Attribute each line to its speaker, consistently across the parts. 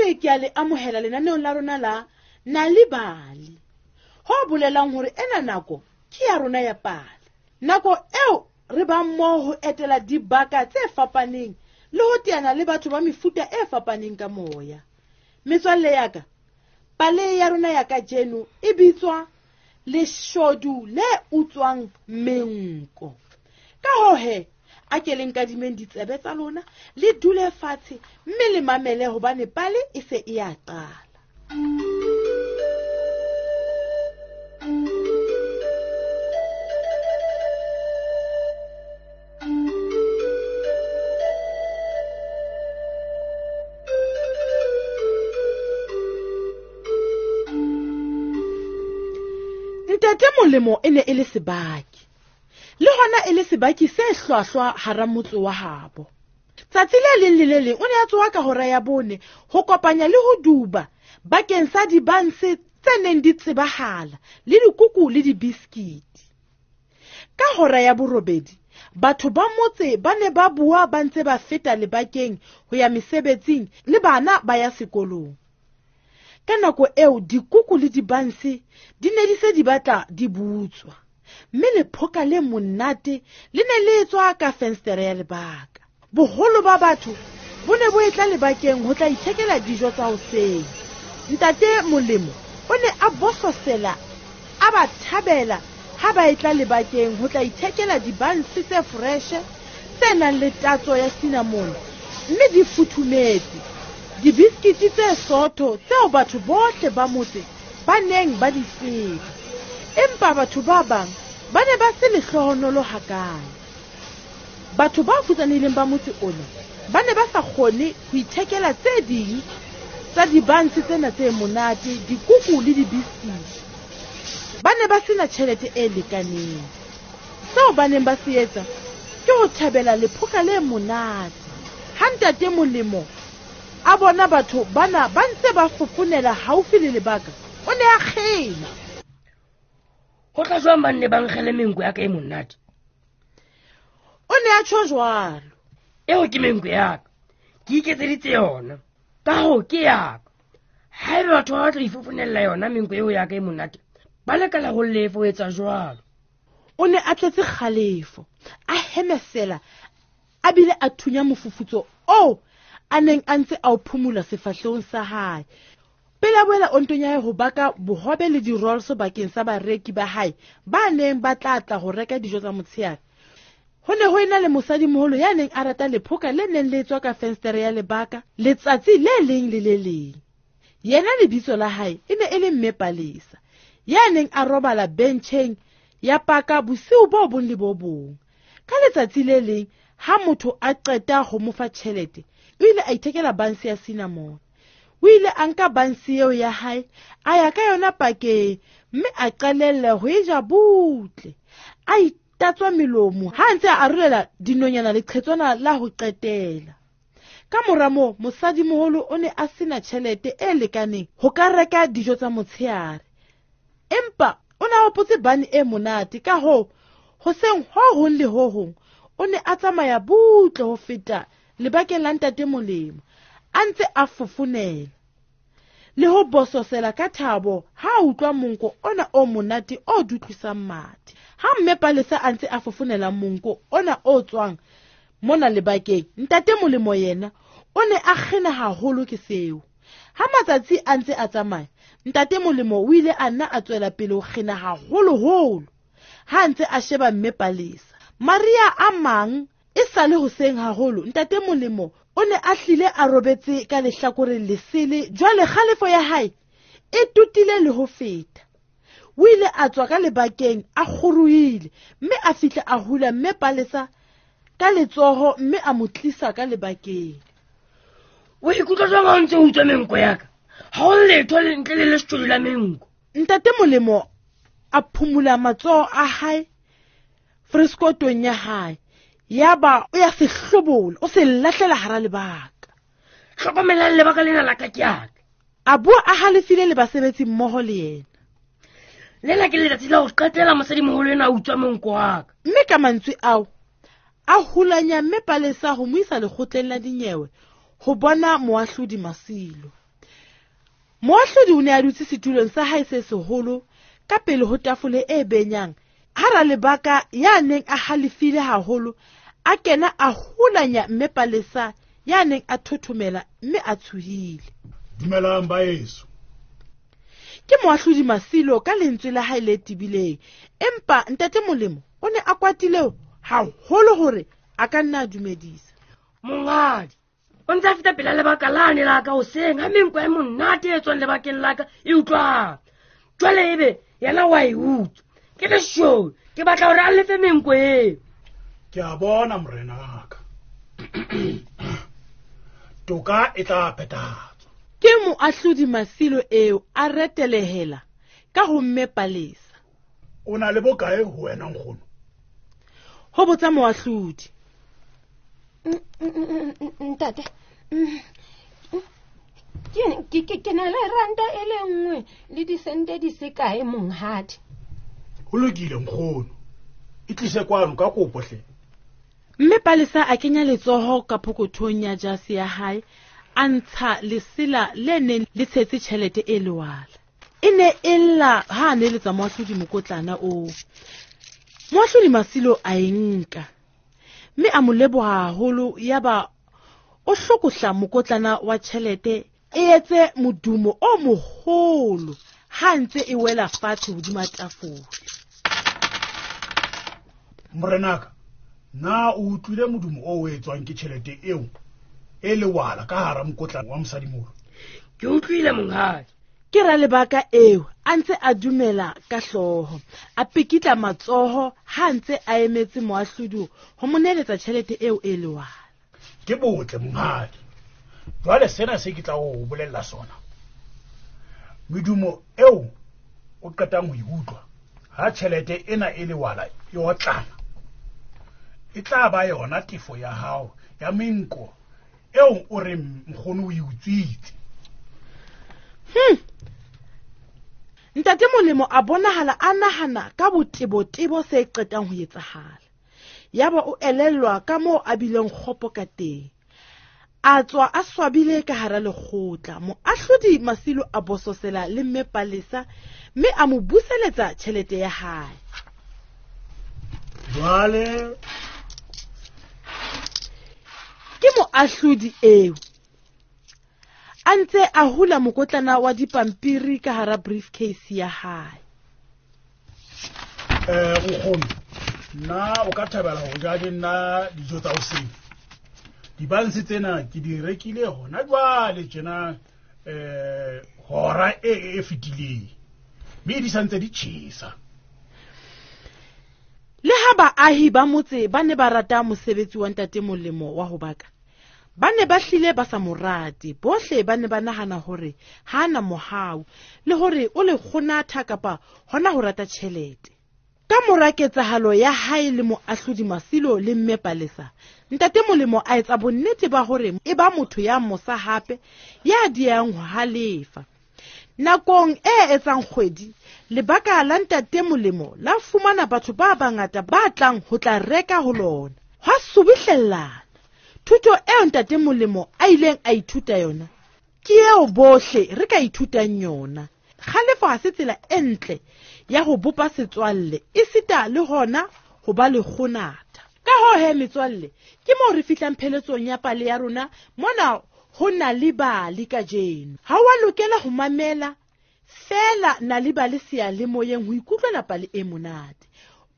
Speaker 1: Boetse ke a le amohela lenaneong la rona la Nal'ibali. Ho bolelang hore ena nako ke ya rona ya pale. Nako eo re bang mmoho ho etela dibaka tse fapaneng le ho teana le batho ba mefuta e fapaneng ka moya. Metswalle ya ka, pale ya rona ya kajeno e bitswa Leshodu le utswang menko. Ka hoo he, a ke le nkadimeng ditsebe tsa lona, le dule fatshe mme le mamele hobane pale e se e a qala. Ntate Molemo e ne e le sebaki, le hona e le sebaki se hlwahlwa hara motse wa habo. Tsatsi le leng le le leng o ne a tsoha ka hora ya 4 ho kopanya le ho duba bakeng sa dibanse tse neng di tsebahala le dikuku le dibiskiti. Ka hora ya 8 batho ba motse ba ne ba bua ba ntse ba feta lebakeng ho ya mesebetsing le bana ba ya sekolong. Ka nako eo dikuku le dibanse di ne di se di batla di butswa, mme lephoka le monate le ne le tswa ka fenstere ya lebaka. Boholo ba batho bo ne bo etla lebakeng ho tla ithekela dijo tsa hoseng. Ntate Molemo o ne a bososela a ba thabela ha ba etla lebakeng ho tla ithekela dibanse tse freshe tse nang le tatso ya cinnamon mme di futhumetse, dibiskiti tse sootho tseo batho bohle ba motse ba neng ba di tseba. Empa batho ba bang ba ne ba se lehlohonolo hakaalo. Batho ba futsanehileng ba motse ona ba ne ba sa kgone ho ithekela tse ding tsa dibanse tsena tse monate, dikuku le dibiskiti. Ba ne ba sena tjhelete e lekaneng. Seo ba neng ba se etsa ke ho thabela lephoka le monate. Ha Ntate Molemo a bona batho bana ba ntse ba fofonela haufi le lebaka, o ne a kgena.
Speaker 2: Ho tla jwang ba nne ba nkgele menko ya ka e monate?
Speaker 1: O ne a tjho jwalo.
Speaker 2: Eo ke menko ya ka, ke iketseditse yona, ka hoo ke ya ka. Haeba batho ba batla ho ifofonella yona menko eo ya ka e monate, ba lekala ho lefa ho etsa jwalo.
Speaker 1: O ne a tletse kgalefo, a hemesela, a bile a thunya mofufutso oo a neng a ntse a o phumula sefahlehong sa hae. Pele a boela ontong ya hae ho baka bohobe le di-rolls bakeng sa bareki ba hae ba neng ba tla tla ho reka dijo tsa motshehare. Ho ne ho ena le mosadimoholo ya neng a rata lephoka le neng le tswa ka fenstere ya lebaka letsatsi le leng le le leng. Yena lebitso la hae e ne e le Mme Palesa, ya neng a robala bencheng ya paka bosiu bo bong le bo bong. Ka letsatsi le leng ha motho a qeta ho mo fa tjhelete, o ile a ithekela banse ya cinnamon. O ile a nka banse eo ya hae, a ya ka yona pakeng, mme a qalella ho e ja butle. A itatswa melomo ha a ntse a arolela dinonyana leqhetswana la ho qetela. Ka mora moo, mosadimoholo o ne a sena tjhelete e lekaneng ho ka reka dijo tsa motshehare. Empa o ne a hopotse bane e monate, ka hoo hoseng ho hong le ho hong o ne a tsamaya butle ho feta lebakeng la Ntate Molemo, a ntse a fofonela le ho bososela ka thabo ha a utlwa monko ona o monate o dutlisang mathe. Ha Mme Palesa a ntse a fofonela monko ona o tswang mona lebakeng, Ntate Molemo yena o ne a kgena haholo ke seo. Ha matsatsi a ntse a tsamaya, Ntate Molemo o ile a nna a tswela pele ho kgena haholoholo ha a ntse a sheba Mme Palesa. Maria a mang e sale hoseng haholo, Ntate Molemo o ne a hlile a robetse ka lehlakoreng lesele. Jwale kgalefo ya hae e totile le ho feta. O ile a tswa ka lebakeng a kgorohile, mme a fihla a hula Mme Palesa ka letsoho mme a mo tlisa ka lebakeng.
Speaker 2: O ikutlwa jwang ha o ntse o utswa menko ya ka? Ha o letho ntle le leshodu la menko.
Speaker 1: Ntate Molemo a phumula matsoho a hae freskotong ya hae, yaba o ya se hlobola, o se lahlela hara lebaka.
Speaker 2: Hlokomelang lebaka lena la ka ke ya ka.
Speaker 1: A bua a halefile le basebetsi mmoho le yena.
Speaker 2: Lena ke letsatsi la ho qetela mosadimoholo enwa a utswa monko wa ka.
Speaker 1: Mme ka mantswe ao, a hulanya Mme Palesa ho mo isa lekgotleng la dinyewe ho bona moahlodi Masilo. Moahlodi o ne a dutse setulong sa hae se seholo ka pele ho tafole e benyang. Ha Ralebaka ya neng a halefile haholo a kena a hulanya mme Palesa ya neng a thothomela mme a tshohile.
Speaker 3: Dumelang baeso.
Speaker 1: Ke moahlodi Masilo ka lentswe la hae le tebileng, empa ntate Molemo o ne a kwatile haholo hore a ka nna a dumedisa.
Speaker 2: Monghadi, o ntse a feta pela lebaka lane la ka hoseng ha menko e monate e tswang lebakeng la ka e utlwang. Jwale ebe yena wa e utswa. Ke leshodu, ke batla hore a lefe menko eo.
Speaker 3: Ke a bona morenaka. Toka e tla phethahatswa.
Speaker 1: Ke moahlodi Masilo eo a retelehela ka ho mme Palesa.
Speaker 3: O na le bokae ho wena nkgono?
Speaker 1: Ho botsa moahlodi.
Speaker 4: Ntate, ke na le ranta e le nngwe le disente di se kae monghadi.
Speaker 3: Ho lokile nkgono, e tlise kwano ka kopo hle.
Speaker 1: Mme Palesa a kenya letsoho ka pokothong ya jase ya hae, a ntsha lesela le neng le tshetse tjhelete e lewala. E ne e lla ha a neletsa moahlodi mokotlana oo. Moahlodi Masilo a e nka, mme a mo leboha haholo, yaba o hlokohla mokotlana wa tjhelete e etse modumo o moholo ha ntse e wela fatshe hodima tafole.
Speaker 3: Morenaka, na o utlwile modumo o etswang ke tjhelete eo e lewala ka hara mokotlana wa mosadimoholo?
Speaker 2: Ke utlwile monghadi.
Speaker 1: Ke Ralebaka eo a ntse a dumela ka hlooho, a pikitla matsoho ha ntse a emetse moahlodi ho mo neeletsa tjhelete eo e lewala.
Speaker 3: Ke botle monghadi. Jwale sena se ke tla o bolella sona. Medumo eo o qetang ho e utlwa ha tjhelete ena e lewala e otlana, e tla ba yona tefo ya hao ya menko eo o reng nkgono o e utswitse.
Speaker 1: Ntate Molemo a bonahala a nahana ka botebotebo se qetang ho etsahala. Yaba o elellwa ka moo a bileng kgopo ka teng. A tswa a swabile ka hara lekgotla. Moahlodi Masilo a bososela le mme Palesa mme a mo buseletsa tjhelete ya hae.
Speaker 3: Jwale
Speaker 1: ke moahlodi eo a ntse a hula mokotlana wa dipampiri ka hara briefcase ya hae.
Speaker 3: Nkgono, nna o ka thabela ho ja le nna dijo tsa hoseng? Dibanse tsena ke di rekile hona jwale tjena, hora e fetileng, mme di santse di tjhesa.
Speaker 1: Le ha baahi ba motse ba ne ba rata mosebetsi wa ntate Molemo wa ho baka, ba ne ba hlile ba sa mo rate. Bohle ba ne ba nahana hore ha ana mohau le hore o le kgonatha kapa hona ho rata tjhelete. Ka mora ketsahalo ya hae le moahlodi Masilo le mme Palesa, ntate Molemo a etsa bonnete ba hore e ba motho ya mosa hape ya diehang ho halefa. Nakong e etsang kgwedi, lebaka la ntate Molemo la fumana batho ba bangata ba tlang ho tla reka ho lona. Hwa subuhlellana. Thuto eo ntate Molemo a ileng a ithuta yona ke eo bohle re ka ithutang yona. Kgalefo ha se tsela e ntle ya ho bopa setswalle, esita le hona ho ba le kgonatha. Ka hoo he metswalle, ke moo re fihlang pheletsong ya pale ya rona mona ho Nal'ibali kajeno. Ha wa lokela ho mamela feela Nal'ibali seyalemoyeng ho ikutlwela pale e monate.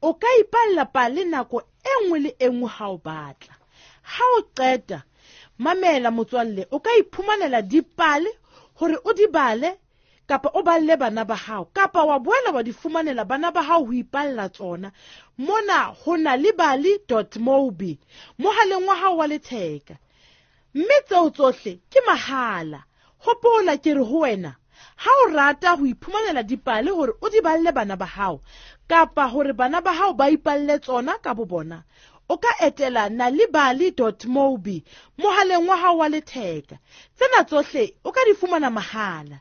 Speaker 1: O ka ipalla pale nako e nngwe le e nngwe ha o batla. Ha o qeta, mamela motswalle, o ka iphumanela dipale hore o di bale kapa o balle bana ba hao, kapa wa boela wa di fumanela bana ba hao ho ipalla tsona mona ho nalibali.mobi mohaleng wa hao wa letheka. Mme tseo tsohle ke mahala. Hopola ke re ho wena, ha o rata ho iphumanela dipale hore o di balle bana ba hao, kapa hore bana ba hao ba ipalle tsona ka bo bona, o ka etela nalibali.mobi mohaleng wa hao wa letheka. Tsena tsohle o ka di fumana mahala.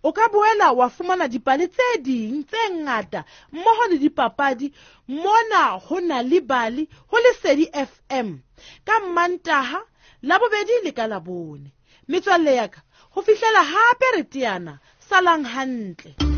Speaker 1: O ka boela wa fumana dipale tse ding tse ngata mmoho le dipapadi mona ho Nal'ibali ho Lesedi FM ka Mantaha, Labobedi le ka Labone. Metswalle ya ka, Ho fihlela hape re teana, salang hantle.